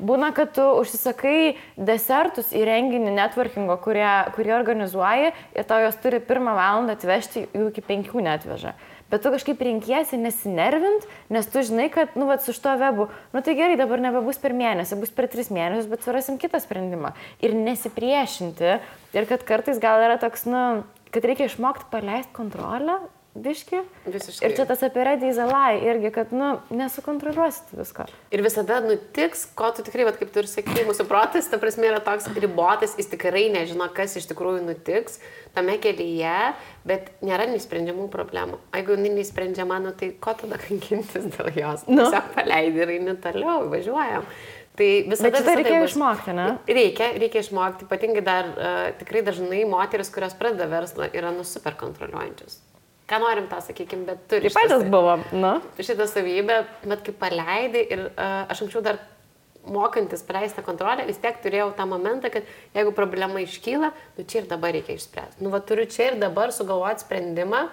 Būna, kad tu užsisakai desertus į renginį networkingo, kurie organizuoji ir tau jos turi 1 valandą atvežti, jų iki 5 netveža. Bet tu kažkaip renkiesi nesinervint, nes tu žinai, kad, su šito webu, tai gerai, dabar nebebus per mėnesį, bus per 3 mėnesius, bet surasim kitą sprendimą. Ir nesipriešinti. Ir kad kartais gal yra toks, kad reikia išmokti paleisti kontrolę, biški. Visiškai. Ir čia tas apie ready is a lie irgi, kad, nesukontroliuosit visko. Ir visada nutiks, ko tu tikrai, kaip tu ir sakai, mūsų protas, ta prasme, yra toks ribotas, jis tikrai nežino, kas iš tikrųjų nutiks tame kelyje, bet nėra neįsprendžiamų problemų. Jeigu neįsprendžiama, tai ko tada kankintis dėl jos? Tiesiog paleidi ir eini toliau, važiuojam. Tai visada reikia išmokti, ne? Reikia išmokti. Ypatingai dar tikrai dažnai moteris, kurios pradeda verslą, yra super kontroliuojančios. Ką norim tą, sakykime, bet turi šitą savybę, bet kai paleidai ir aš anksčiau dar mokantis paleisti kontrolę, vis tiek turėjau tą momentą, kad jeigu problema iškyla, čia ir dabar reikia išspręsti. Turiu čia ir dabar sugalvoti sprendimą,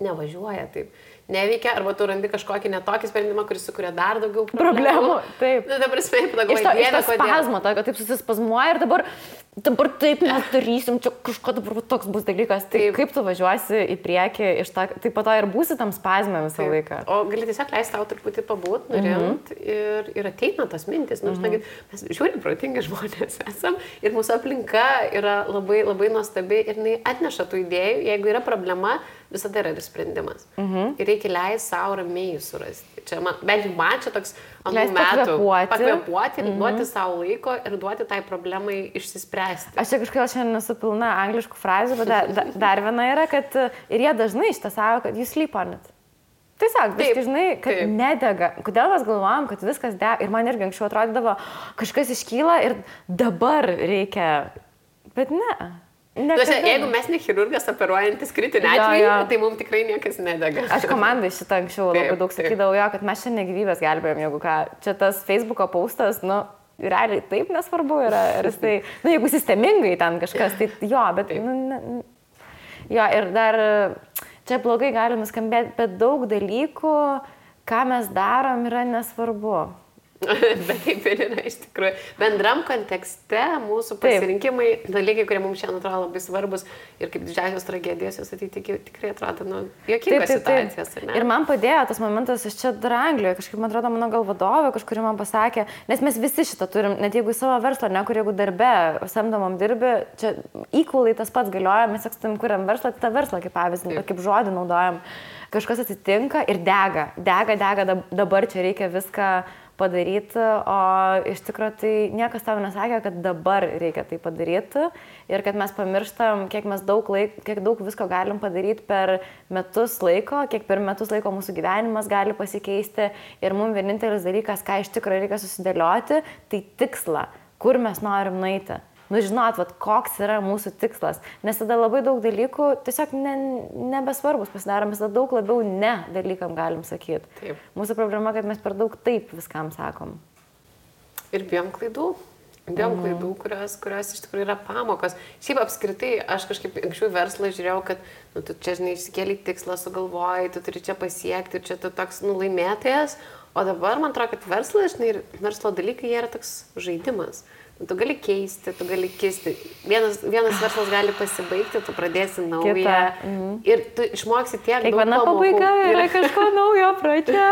nevažiuoja taip. Neveikia, arba tu randi kažkokį netokį sprendimą, kuris sukuria dar daugiau problemų. Taip. Ta prasme, pagalvoji, iš to spazmo, kad taip susispazmuoja ir dabar taip mes darysim, čia kažko dabar toks bus dalykas. Tai kaip tu važiuosi į priekį, tai po to ir būsi tam spazme visą laiką. O gali tiesiog leisti tau truputį pabūt, nurimt ir ateina tas mintis. Mes žiūrim protingi žmonės esam ir mūsų aplinka yra labai, labai nuostabi ir jinai atneša tų idėjų, jeigu yra problema, visada yra ir sprendimas. Ir reikia leisti savo ramiai surasti. Čia bent jau man čia toks anų metų pakvėpuoti ir duoti savo laiko ir duoti tai problemai išsispręsti. Aš čia kažkaip šiandien nesu pilna angliškų frazių, bet dar viena yra, kad ir jie dažnai šitą savo, kad you sleep on it. Tiesiog, viskai žinai, kad nedega. Kodėl mes galvojam, kad viskas dega? Ir man irgi anksčiau atrodydavo, kažkas iškyla ir dabar reikia. Bet ne. Jeigu mes ne chirurgas operuojantis kritinį atvejį, tai mums tikrai niekas nedega. Aš komandai šitą anksčiau labai daug sakydavau, kad mes šiandien gyvybės gelbėjom, jeigu ką. Čia tas Facebooko postas, realiai taip nesvarbu yra. Ir tai, jeigu sistemingai ten kažkas, tai jo, bet... Jo, ir dar čia blogai gali nuskambėti, bet daug dalykų, ką mes darom, yra nesvarbu. Bet taip ir yra iš tikrųjų. Bendram kontekste mūsų pasirinkimai, dalykai, kurie mums šiandien atrodo labai svarbus ir kaip didžiausios tragedijos, jos tikrai atrodo juokingos situacijos. Ir man padėjo tas momentas, aš čia dar Anglijoje, kažkaip man atrodo mano gal vadovė, kažkuri man pasakė, nes mes visi šitą turim, net jeigu į savo verslą, ne kur jeigu darbe, samdomam dirbi, čia equally tas pats galioja, mes ekstam kuriam verslą, tą verslą kaip pavyzdį, kaip žodį naudojam, kažkas atsitinka ir dega, dabar čia reikia viską padaryti, o iš tikrųjų tai niekas tau nesakė, kad dabar reikia tai padaryti ir kad mes pamirštam, kiek daug visko galim padaryti per metus laiko, kiek per metus laiko mūsų gyvenimas gali pasikeisti ir mums vienintelis dalykas, ką iš tikrųjų reikia susidėlioti, tai tikslą, kur mes norim nueiti. Žinot, koks yra mūsų tikslas, nes tada labai daug dalykų tiesiog nebesvarbus pasidarom, mes tada daug labiau ne dalykam galim sakyti. Taip. Mūsų problema, kad mes per daug taip viskam sakom. Ir bijom klaidų. Bijom klaidų, kurios iš tikrųjų yra pamokos. Šiaip apskritai, aš kažkaip anksčiau verslą žiūrėjau, kad tu čia, žinai, išsikėlė tikslą, sugalvojai, tu turi čia pasiekti, čia tu toks laimėtojas, o dabar man atrodo, kad verslas, žinai, ir verslo dalykai, jie yra toks žaidimas. Tu gali keisti, tu gali kisti. Vienas verslas gali pasibaigti, tu pradėsi naują ir tu išmoksi tiek daug pamokų. Kiekviena pabaiga yra kažko naujo pradžia.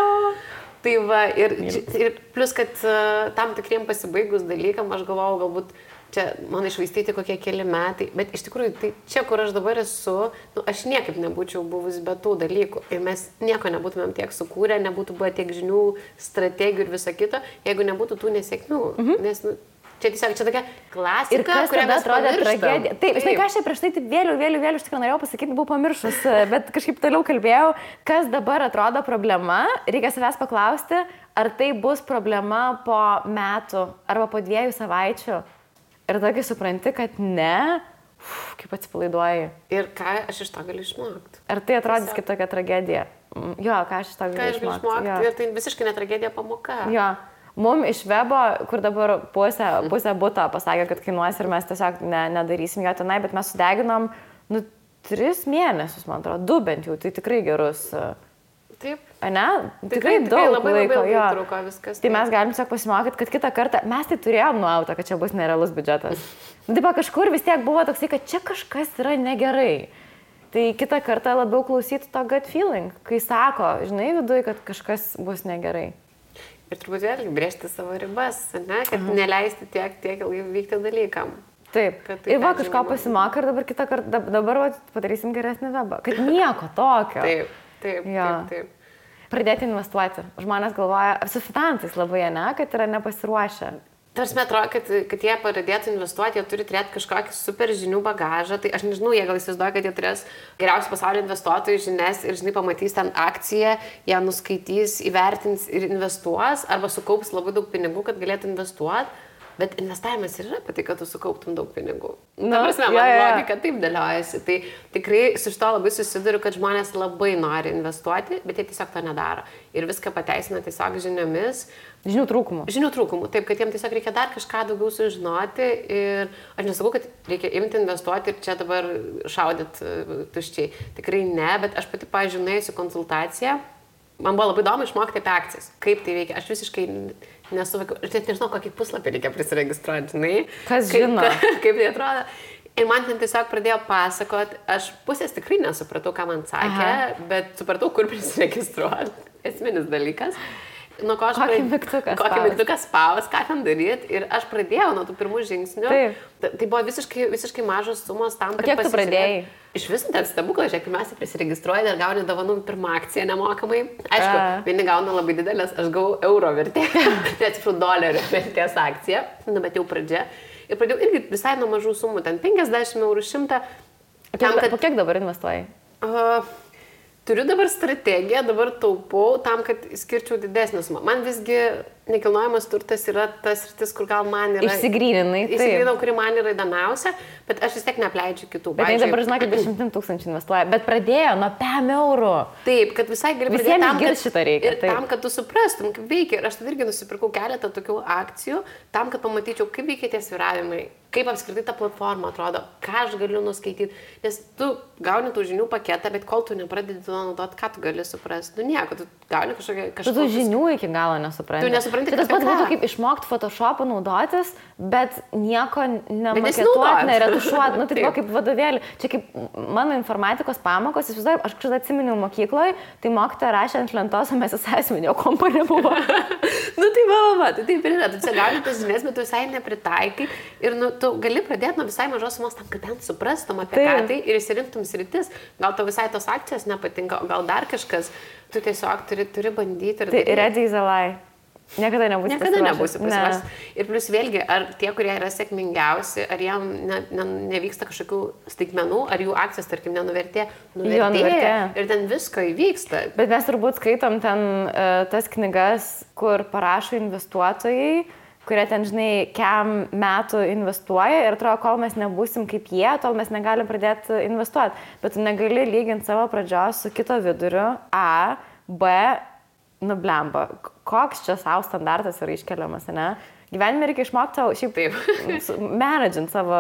Tai va, ir plus, kad tam tikriem pasibaigus dalykam, aš galvojau, galbūt čia man išvaistyti kokie keli metai, bet iš tikrųjų, tai čia, kur aš dabar esu, aš niekaip nebūčiau buvus be tų dalykų ir mes nieko nebūtumėm tiek sukūrę, nebūtų buvę tiek žinių, strategijų ir viso kito, jeigu nebūtų tų nesėkmių, nes, čia tiesiog, čia tokia klasika, kurią mes atrodė tragedija. Taip, žinai, ką aš čia prieš tai taip vėliau, iš tikrųjų norėjau pasakyti, buvau pamiršus, bet kažkaip toliau kalbėjau, kas dabar atrodo problema, reikia savęs paklausti, ar tai bus problema po metų arba po 2 savaičių. Ir tokį supranti, kad ne, kaip atsipalaiduoji. Ir ką aš iš to galiu išmokti. Ar tai atrodys kaip tokia tragedija? Jo, ką aš iš to galiu išmokti. Ir tai visiškai ne tragedija, pamoka. Jo. Mums iš webo, kur dabar pusę buto pasakė, kad kainuos ir mes tiesiog nedarysim jo tenai, bet mes sudeginom 3 mėnesius, man atrodo, 2 bent jau, tai tikrai gerus. Taip. Ne? Tikrai daug laiko. Labai truko viskas. Tai mes galim tiesiog pasimokyti, kad kitą kartą mes tai turėjom nuautą, kad čia bus nerealus biudžetas. Taip, kažkur vis tiek buvo toksai, kad čia kažkas yra negerai. Tai kitą kartą labiau klausyti to gut feeling, kai sako, žinai, viduje, kad kažkas bus negerai. Ir turbūt vėlgi brėžti savo ribas, ne? Kad neleisti tiek ilgai vykti dalykam. Taip. Tai ir va kažko pasimokai ir dabar kitą kartą, dabar padarysim geresnį webą. Kad nieko tokio. Taip. Pradėti investuoti. Žmonės galvoja, su finansais labai, ne, kad yra nepasiruošę. Tarsi atrodo, kad jie pradėtų investuoti, jie turi turėti kažkokį super žinių bagažą. Tai aš nežinau, jie gal įsivaizduoja, kad jie turės geriausių pasaulio investuotojų žinias ir, žinai, pamatys ten akciją, ją nuskaitys, įvertins ir investuos, arba sukaups labai daug pinigų, kad galėtų investuoti. Bet investavimas ir yra apie tai, kad tu sukauptum daug pinigų. Ta prasme, man logika taip dėliojasi. Tai tikrai su šito labai susiduriu, kad žmonės labai nori investuoti, bet jie tiesiog to nedaro. Ir viską pateisina tiesiog žiniomis. Žinių trūkumų. Taip, kad jiems tiesiog reikia dar kažką daugiau sužinoti. Ir aš nesakau, kad reikia imti investuoti ir čia dabar šaudyti tuščiai. Tikrai ne, bet aš pati, pavyzdžiui, nuėjusiu konsultaciją. Man buvo labai įdomu išmokti apie akcijas. Kaip tai veikia. Aš visiškai nesuvokiau. Aš net nežinau, kokį puslapį reikia prisiregistruoti, žinai. Kas žino? Kaip tai atrodo. Ir man ten tiesiog pradėjo pasakoti. Aš pusės tikrai nesupratau, ką man sakė, bet supratau, kur prisiregistruoti. Esminis dalykas. Nuo ko aš kokį mygtuką spaus, ką ten daryti. Ir aš pradėjau nuo tų pirmų žingsnių. Taip. Tai buvo visiškai mažos sumos tam, kad kiek tu pradėjai? Iš visų ten stebuklas, žiūrėk, pirmiausia prisiregistruoji ir gauni dovanų pirmą akciją nemokamai. Aišku, vieni gauna labai didelės, aš gavau euro vertė, atsiprašau, dolerio vertės akciją, bet jau pradžia. Ir pradėjau irgi visai nuo mažų sumų, ten 50 eurų, 100. Po kiek dabar investuoji? Turiu dabar strategiją, dabar taupau tam, kad skirčiau didesnį sumą. Man visgi nekilnojamas turtas yra tas sritis, kur gal man yra... Išsigryninau, kuri man yra įdomiausia, bet aš vis tiek neapleidžiu kitų. Bet jie dabar, žinok, 10 000 investuoja, bet pradėjo nuo 5 eurų. Taip, kad visai gali pradėti tam, šitą reikia. Ir tam, kad tu suprastum, kaip veikia. Ir aš tada irgi nusipirkau keletą tokių akcijų, tam, kad pamatyčiau, kaip veikia tie svyravimai, kaip apskritai ta platforma atrodo, ką aš galiu nuskaityti. Nes tu gauni tų žinių paketą, bet kol tu nepradedi to naudoti, ką tu gali suprasti. Nieko, tu gauni kažkokią... Tu žinių iki galo nesupranti. Tu nesupranti, tas pats būtų kaip išmokti Photoshopą naudotis, bet nieko nemaketuoti, neretušuoti. Tai buvo kaip vadovėlį. Čia kaip mano informatikos pamokos, aš kažkada atsiminiau mokykloje, tai mokytoja rašė ant lentos, o mes asmeninio kompo nebuvo. Tai taip ir yra. Tu čia gauni tas žinias, bet tu visai nepritaikai. Ir tu gali pradėti nuo visai mažos sumos tam, kad bent suprastum apie ką tai ir įsirinktum sritis. Gal tau visai tos akcijos nepatinka, o gal dar kažkas. Tu tiesiog turi bandyti. Tai ready is a lie. Niekada nebūsi pasiruošęs. Ir plus vėlgi, ar tie, kurie yra sėkmingiausi, ar jiem nevyksta kažkokių staigmenų, ar jų akcijos, tarkim, nuvertėjo. Ir ten visko įvyksta. Bet mes turbūt skaitom ten tas knygas, kur parašo investuotojai, kurie ten, žinai, kiam metų investuoja ir atrodo, kol mes nebūsim kaip jie, tol mes negalim pradėti investuoti. Bet tu negali lyginti savo pradžios su kito viduriu. A, B, nublemba. Koks čia savo standartas yra iškeliamas, ne? Gyvenime reikia išmokti savo, šiaip managint savo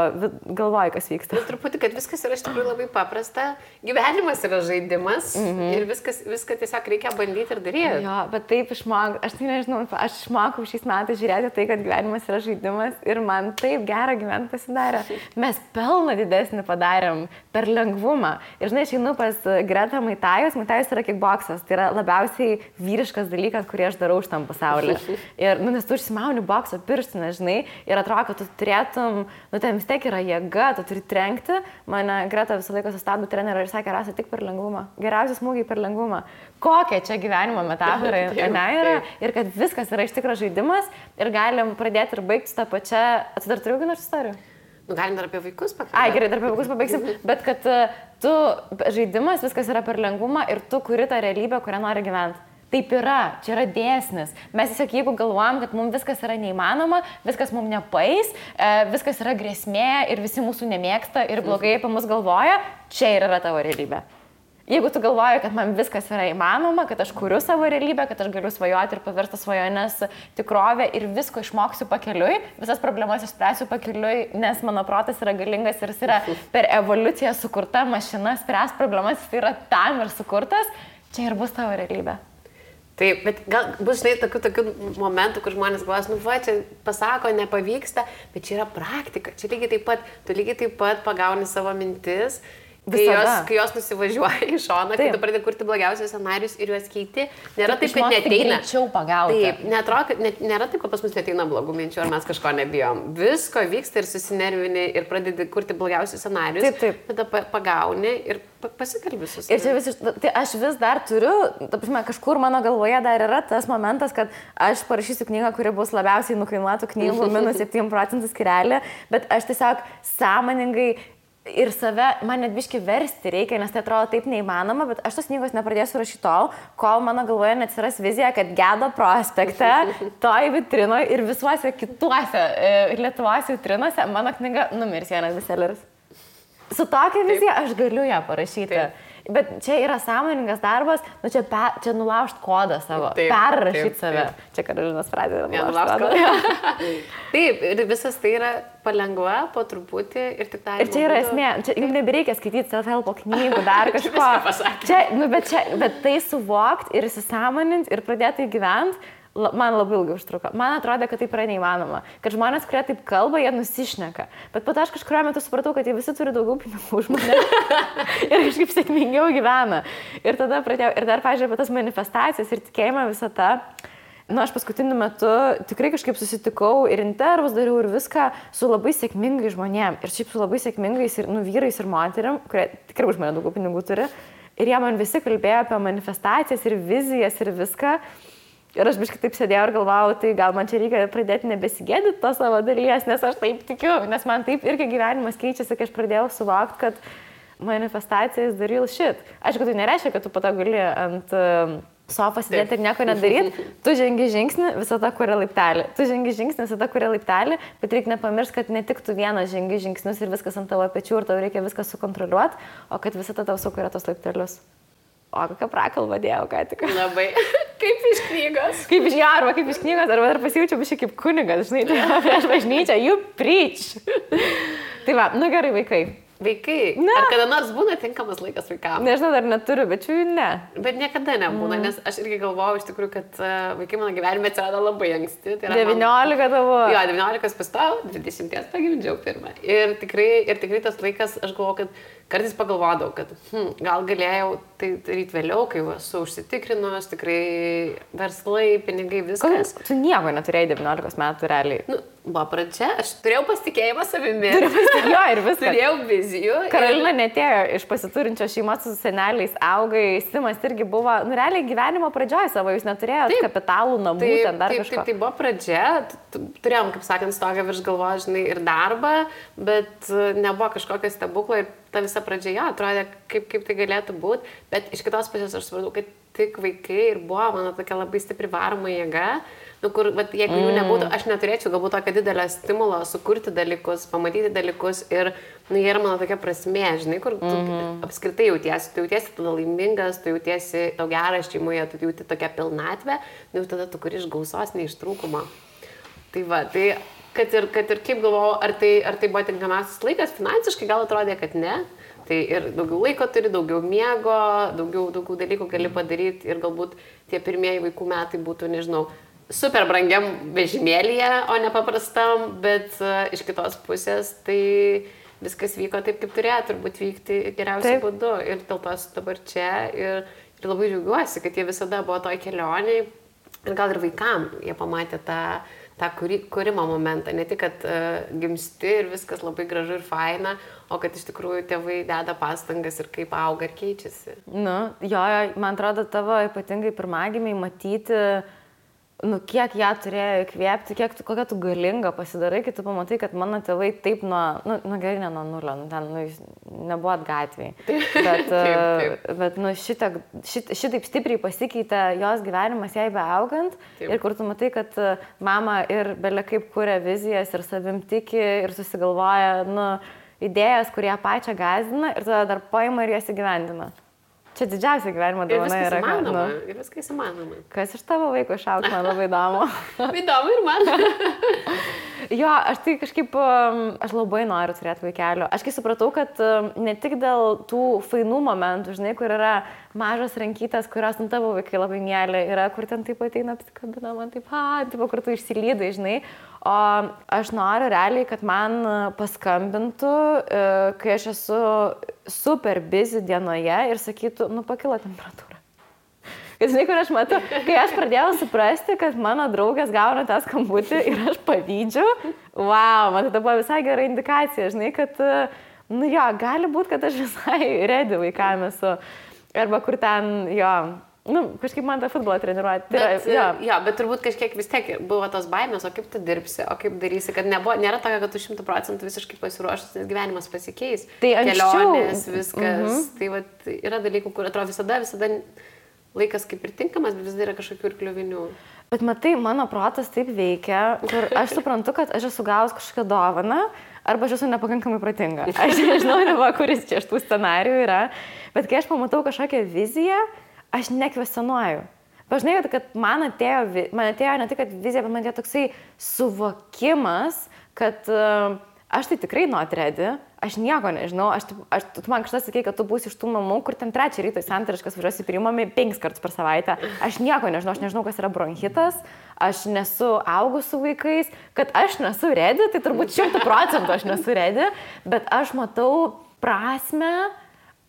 galvoj, kas vyksta. Ir truputį, kad viskas yra iš tikrųjų labai paprasta. Gyvenimas yra žaidimas ir viską tiesiog reikia bandyti ir daryti. Jo, bet taip išmokau, aš tai nežinau, aš išmokau šiais metais žiūrėti tai, kad gyvenimas yra žaidimas ir man taip gera gyventi pasidarė. Mes pelną didesnį padarėm per lengvumą. Ir žinai, aš einu pas Gretą Maitajus. Maitajus yra kickboksas. Tai yra labiausiai vyriškas dalykas, kurį aš darau šitam pasauliu. Ir, nes tu užsimauni bokso pirštinę, žinai, ir atrodo, kad tu turėtum, ten vis tiek yra jėga, tu turi trenkti. Mane Greta visą laiką sustabdė trenerį ir sakė, Rasa, tik per lengvumą. Geriausi smūgiai per lengvumą. Kokia čia gyvenimo metafora yra ir kad viskas yra iš tikro žaidimas ir galim pradėti ir baigti tą pačią. Dar turiu vieną istorijų? Galim dar apie vaikus pakalbėti. Gerai, dar apie vaikus pabaigsim. Bet kad tu žaidimas, viskas yra per lengvumą ir tu kuri tą realybę, kurią nori gyventi. Taip yra, čia yra dėsnis. Mes tiesiog jeigu galvojam, kad mums viskas yra neįmanoma, viskas mums nepaeis, viskas yra grėsmė ir visi mūsų nemėgsta ir blogai apie mus galvoja, čia ir yra tavo realybė. Jeigu tu galvoji, kad man viskas yra įmanoma, kad aš kuriu savo realybę, kad aš galiu svajoti ir paversti svajonės tikrovę ir visko išmoksiu pakeliui, visas problemas išspręsiu pakeliui, nes mano protas yra galingas ir jis yra per evoliuciją sukurta mašina, spręs problemas, jis yra tam ir sukurtas, čia ir bus tavo realybė. Taip, bet gal bus, žinai, tokių momentų, kur žmonės galvos, čia pasako, nepavyksta, bet čia yra praktika. Čia tu lygiai taip pat pagauni savo mintis, kai jos nusivažiuoja į šoną, kai tu pradedi kurti blogiausius scenarius ir juos keiti, nėra taip, kad neteina. Greičiau pagauti. Taip, nėra taip, kad pas mus neteina blogų minčių, ar mes kažko nebijom. Visko vyksta ir susinervini ir pradedi kurti blogiausius scenarius, tada pagauni ir pasikalbi su savimi. Ir čia tai aš vis dar turiu, kažkur mano galvoje dar yra tas momentas, kad aš parašysiu knygą, kuri bus labiausiai nukainuotų knygų minus 7% skirelį, bet aš tiesiog sąmoningai ir save, man net biški versti reikia, nes tai atrodo taip neįmanoma, bet aš tos knygos nepradėsiu rašyti tol, kol mano galvoje neatsiras vizija, kad Gedo prospekte, toj vitrinoje ir visuose kituose Lietuvos vitrinose mano knyga numirs vienas bestselleris. Su tokia vizija aš galiu ją parašyti. Taip. Bet čia yra sąmoningas darbas, čia nulaužt kodą savo, perrašyti save. Čia Karolinos frazė yra nulaužt kodą. Taip, ir visas tai yra palengva, po truputį ir tik tai. Ir čia yra esmė, jums nebereikia skaityti self-helpo knygų, dar kažko. Bet tai suvokti ir įsisąmoninti ir pradėti gyventi, man labai ilgai užtruko. Man atrodė, kad taip yra neįmanoma. Kad žmonės, kurie taip kalba, jie nusišneka. Bet po to aš kažkuriuo metu supratau, kad jie visi turi daugiau pinigų už mane. Ir kažkaip sėkmingiau gyvena. Ir tada pradėjau, ir dar, pažiūrėjau, apie tas manifestacijas ir tikėjimą visą tą. Aš paskutiniu metu tikrai kažkaip susitikau ir intervus dariau ir viską su labai sėkmingai žmonėm. Ir šiaip su labai sėkmingais ir vyrais ir moterim, kurie tikrai už mane daugiau pinigų turi. Ir jie man visi kalbėjo apie manifestacijas ir vizijas ir viską. Ir aš biškai taip sėdėjau ir galvojau, tai gal man čia reikia pradėti nebesigėdyti to savo dalies, nes aš taip tikiu, nes man taip irgi gyvenimas keičiasi, kai aš pradėjau suvokti, kad manifestacija is the real shit. Aišku, tai nereiškia, kad tu po to gali ant sofą sėdėti ir nieko nedaryti. Tu žengi žingsnį, visada kuria laiptelį. Tu žengi žingsnį, visada kuria laiptelį, bet reikia nepamiršti, kad ne tik tu vienas žengi žingsnius ir viskas ant tavo pečių ir tau reikia viską sukontroliuoti, o kad visada tau sukuria tos laiptelius. O kokią prakalbą dėjau, ką tik. Labai. Kaip iš knygos. Kaip iš knygos, arba dar pasijaučiau biškai kaip kunigas, žinai, tai prieš bažnyčią, you preach. Tai va, gerai, vaikai. Vaikai? Ne. Ar kada nors būna tinkamas laikas vaikams? Nežinau, dar neturiu, bet čia ne. Bet niekada nebūna, nes aš irgi galvojau iš tikrųjų, kad vaikai mano gyvenime atsirado labai anksti. Tai 19 tavo. Jo, 19 pastojau, 20 pagimdžiau pirmą. Ir tikrai tas laikas, aš galvojau, kad kartais pagalvodavau, kad gal galėjau tai daryti vėliau, kai esu užsitikrinus, tikrai verslai, pinigai, viskas. Tu nieko neturėjai 19 metų realiai. Buvo pradžia, aš turėjau pasitikėjimą savimi. Jo, ir viskas. Turėjau vizijų. Karolina netėjo iš pasiturinčios šeimos su seneliais, augai, Simas irgi buvo, realiai gyvenimo pradžioje savo, jūs neturėjote kapitalų, namų, ten dar kažko. Tai buvo pradžia, turėjom, kaip sakant, stogą virš galvos, žinai, ir darbą, bet nebuvo kažkokio stebuklo ir ta visa pradžia, jo, atrodė, kaip tai galėtų būti, bet iš kitos pusės aš supratau, kad tik vaikai ir buvo mano tokia labai stipri varoma jėga, kur, jeigu jų nebūtų, aš neturėčiau galbūt tokio didelio stimulo sukurti dalykus, pamatyti dalykus ir, jie yra mano tokia prasmė, žinai, kur tu apskritai jautiesi tada laimingas, tu jautiesi tau geras šeimoje, tu jauti tokią pilnatvę, tada tu kuri iš gausos, ne iš trūkumo. Tai va, tai kad ir kaip galvojau, ar tai buvo tinkamiausias laikas, finansiškai gal atrodė, kad ne. Tai ir daugiau laiko turi, daugiau miego, daugiau dalykų gali padaryti ir galbūt tie pirmieji vaikų metai būtų, nežinau, super brangiam vežimėlyje, o ne paprastam, bet iš kitos pusės tai viskas vyko taip, kaip turėjo turbūt vykti geriausiu būdu. Ir dėl to esu dabar čia ir labai džiaugiuosi, kad jie visada buvo toj kelioniai ir gal ir vaikam jie pamatė tą kūrimo momentą, ne tik, kad gimsti ir viskas labai gražu ir faina, o kad iš tikrųjų tėvai deda pastangas ir kaip auga ir keičiasi. Nu, jo, man atrodo, tavo ypatingai pirmagimiai matyti, kiek ją turėjo įkvėpti, kokia tu galinga pasidarai, kai tu pamatai, kad mano tėvai taip gerai ne nuo nulio, ten jūs nebuvot gatvėj. Bet šitaip stipriai pasikeitė jos gyvenimas jai beaugant ir kur tu matai, kad mama ir belia kaip kuria vizijas ir savim tiki ir susigalvoja idėjas, kurie pačią gąsdina ir tada dar paima ir jas įgyvendina. Čia didžiausia gyvenimo dovana yra. Ir viskas įmanoma. Kas iš tavo vaiko išaugs, man labai įdomu. Įdomu ir man. Jo, aš tai kažkaip, aš labai noriu turėti vaikelio. Aš kai supratau, kad ne tik dėl tų fainų momentų, žinai, kur yra mažos rankytės, kurios tavo vaikai labai mėly, yra, kur ten taip ateina, apsikabina man taip, kur tu išsilydai, žinai. O aš noriu realiai, kad man paskambintų, kai aš esu super busy dienoje ir sakytų, pakilo temperatūra. Kad žinai, kur aš matau, kai aš pradėjau suprasti, kad mano draugas gauna tą skambutį ir aš pavydžiu, man tai buvo visai gera indikacija, žinai, kad, gali būti, kad aš visai ready vaikam esu. Arba kur ten, kažkaip man tą futbolą treniruoti. Bet turbūt kažkiek vis tiek buvo tos baimės, o kaip tu dirbsi, o kaip darysi, kad nėra tokia, kad tu 100% visiškai pasiruošęs, nes gyvenimas pasikeis. Tai kelionės, viskas. Tai yra dalykų, kur atrodo visada laikas kaip ir tinkamas, bet vis dar yra kažkokių ir kliuvinių. Bet matai, mano protas taip veikia, kur aš suprantu, kad aš esu gavus kažkokią dovaną, arba aš esu nepakankamai protinga. Aš nežinau, kuris čia iš tų scenarijų yra, bet kai aš pamatau kažkokią viziją, aš nekvestionuoju. Pažinai, kad man atėjo ne tik vizija, bet man atėjo toksai suvokimas, kad aš tai tikrai not ready, aš nieko nežinau, tu man kažkas sakei, kad tu būsi iš tų mamų, kur ten 3 ryto į santariškas važiuosi priimami 5 kartus per savaitę. Aš nieko nežinau, aš nežinau, kas yra bronchitas, aš nesu augus su vaikais, kad aš nesu ready, tai turbūt 100% aš nesu ready, bet aš matau prasmę,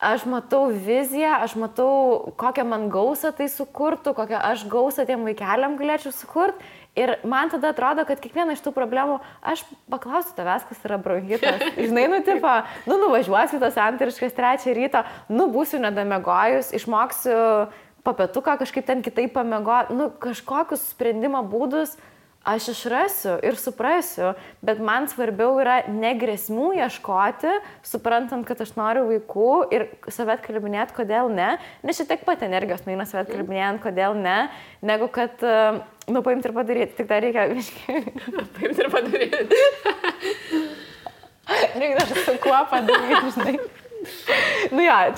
aš matau viziją, aš matau, kokią man gausą tai sukurtų, kokią aš gausą tiem vaikeliam galėčiau sukurti. Ir man tada atrodo, kad kiekvieną iš tų problemų aš paklausiu tavęs, kas yra bronchitas. Žinai, nuvažiuosiu tas santariškas 3 ryto, būsiu nedamegojus, išmoksiu papietuką kažkaip ten kitaip pamiegoti, kažkokius sprendimo būdus aš išrasiu ir suprasiu, bet man svarbiau yra ne grėsmių ieškoti, suprantant, kad aš noriu vaikų ir save atkalbinėti, kodėl ne, nes šitiek pat energijos nueina save atkalbinėjant, kodėl ne, negu kad, paimti ir padaryti, tik dar reikia paimti ir padaryti. Reikia dar su kuo padaryti, žinai.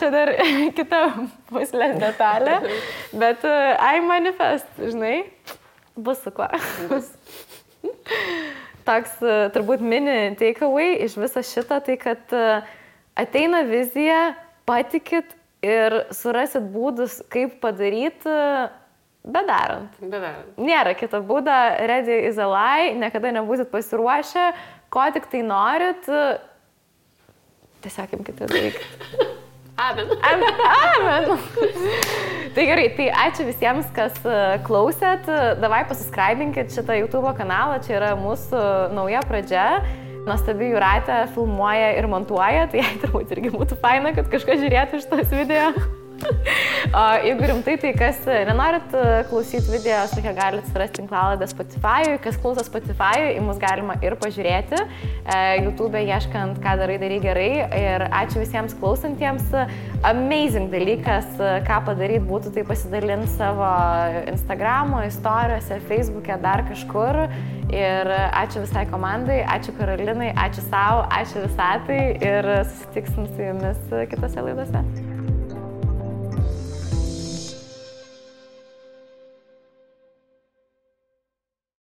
Čia dar kita puslės detalė, bet I manifest, žinai. Bus su kuo. Toks turbūt mini takeaway iš viso šito, tai kad ateina vizija, patikit ir surasit būdus, kaip padaryti, bedarant. Nėra kito būdo, ready is a lie, niekada nebūsit pasiruošę, ko tik tai norit, tiesiog imkite darykit. Amen. Tai gerai, tai ačiū visiems, kas klausėt. Davai pasiskraibinkit šitą YouTube kanalą, čia yra mūsų nauja pradžia. Nuostabi Jūratė filmuoja ir montuoja, tai jai turbūt irgi būtų faina, kad kažkas žiūrėtų šitos video. O jeigu rimtai, tai kas nenorit klausyti video, sakia, galite surasti tinklalaidę Spotify, kas klauso Spotify, į mus galima ir pažiūrėti, YouTube ieškant, ką darai gerai. Ir ačiū visiems klausantiems. Amazing dalykas, ką padaryti būtų, tai pasidalinti savo Instagramo istorijose, Facebook'e, dar kažkur. Ir ačiū visai komandai, ačiū Karolinai, ačiū savo, ačiū visatai ir susitiksim su jumis kitose laidose.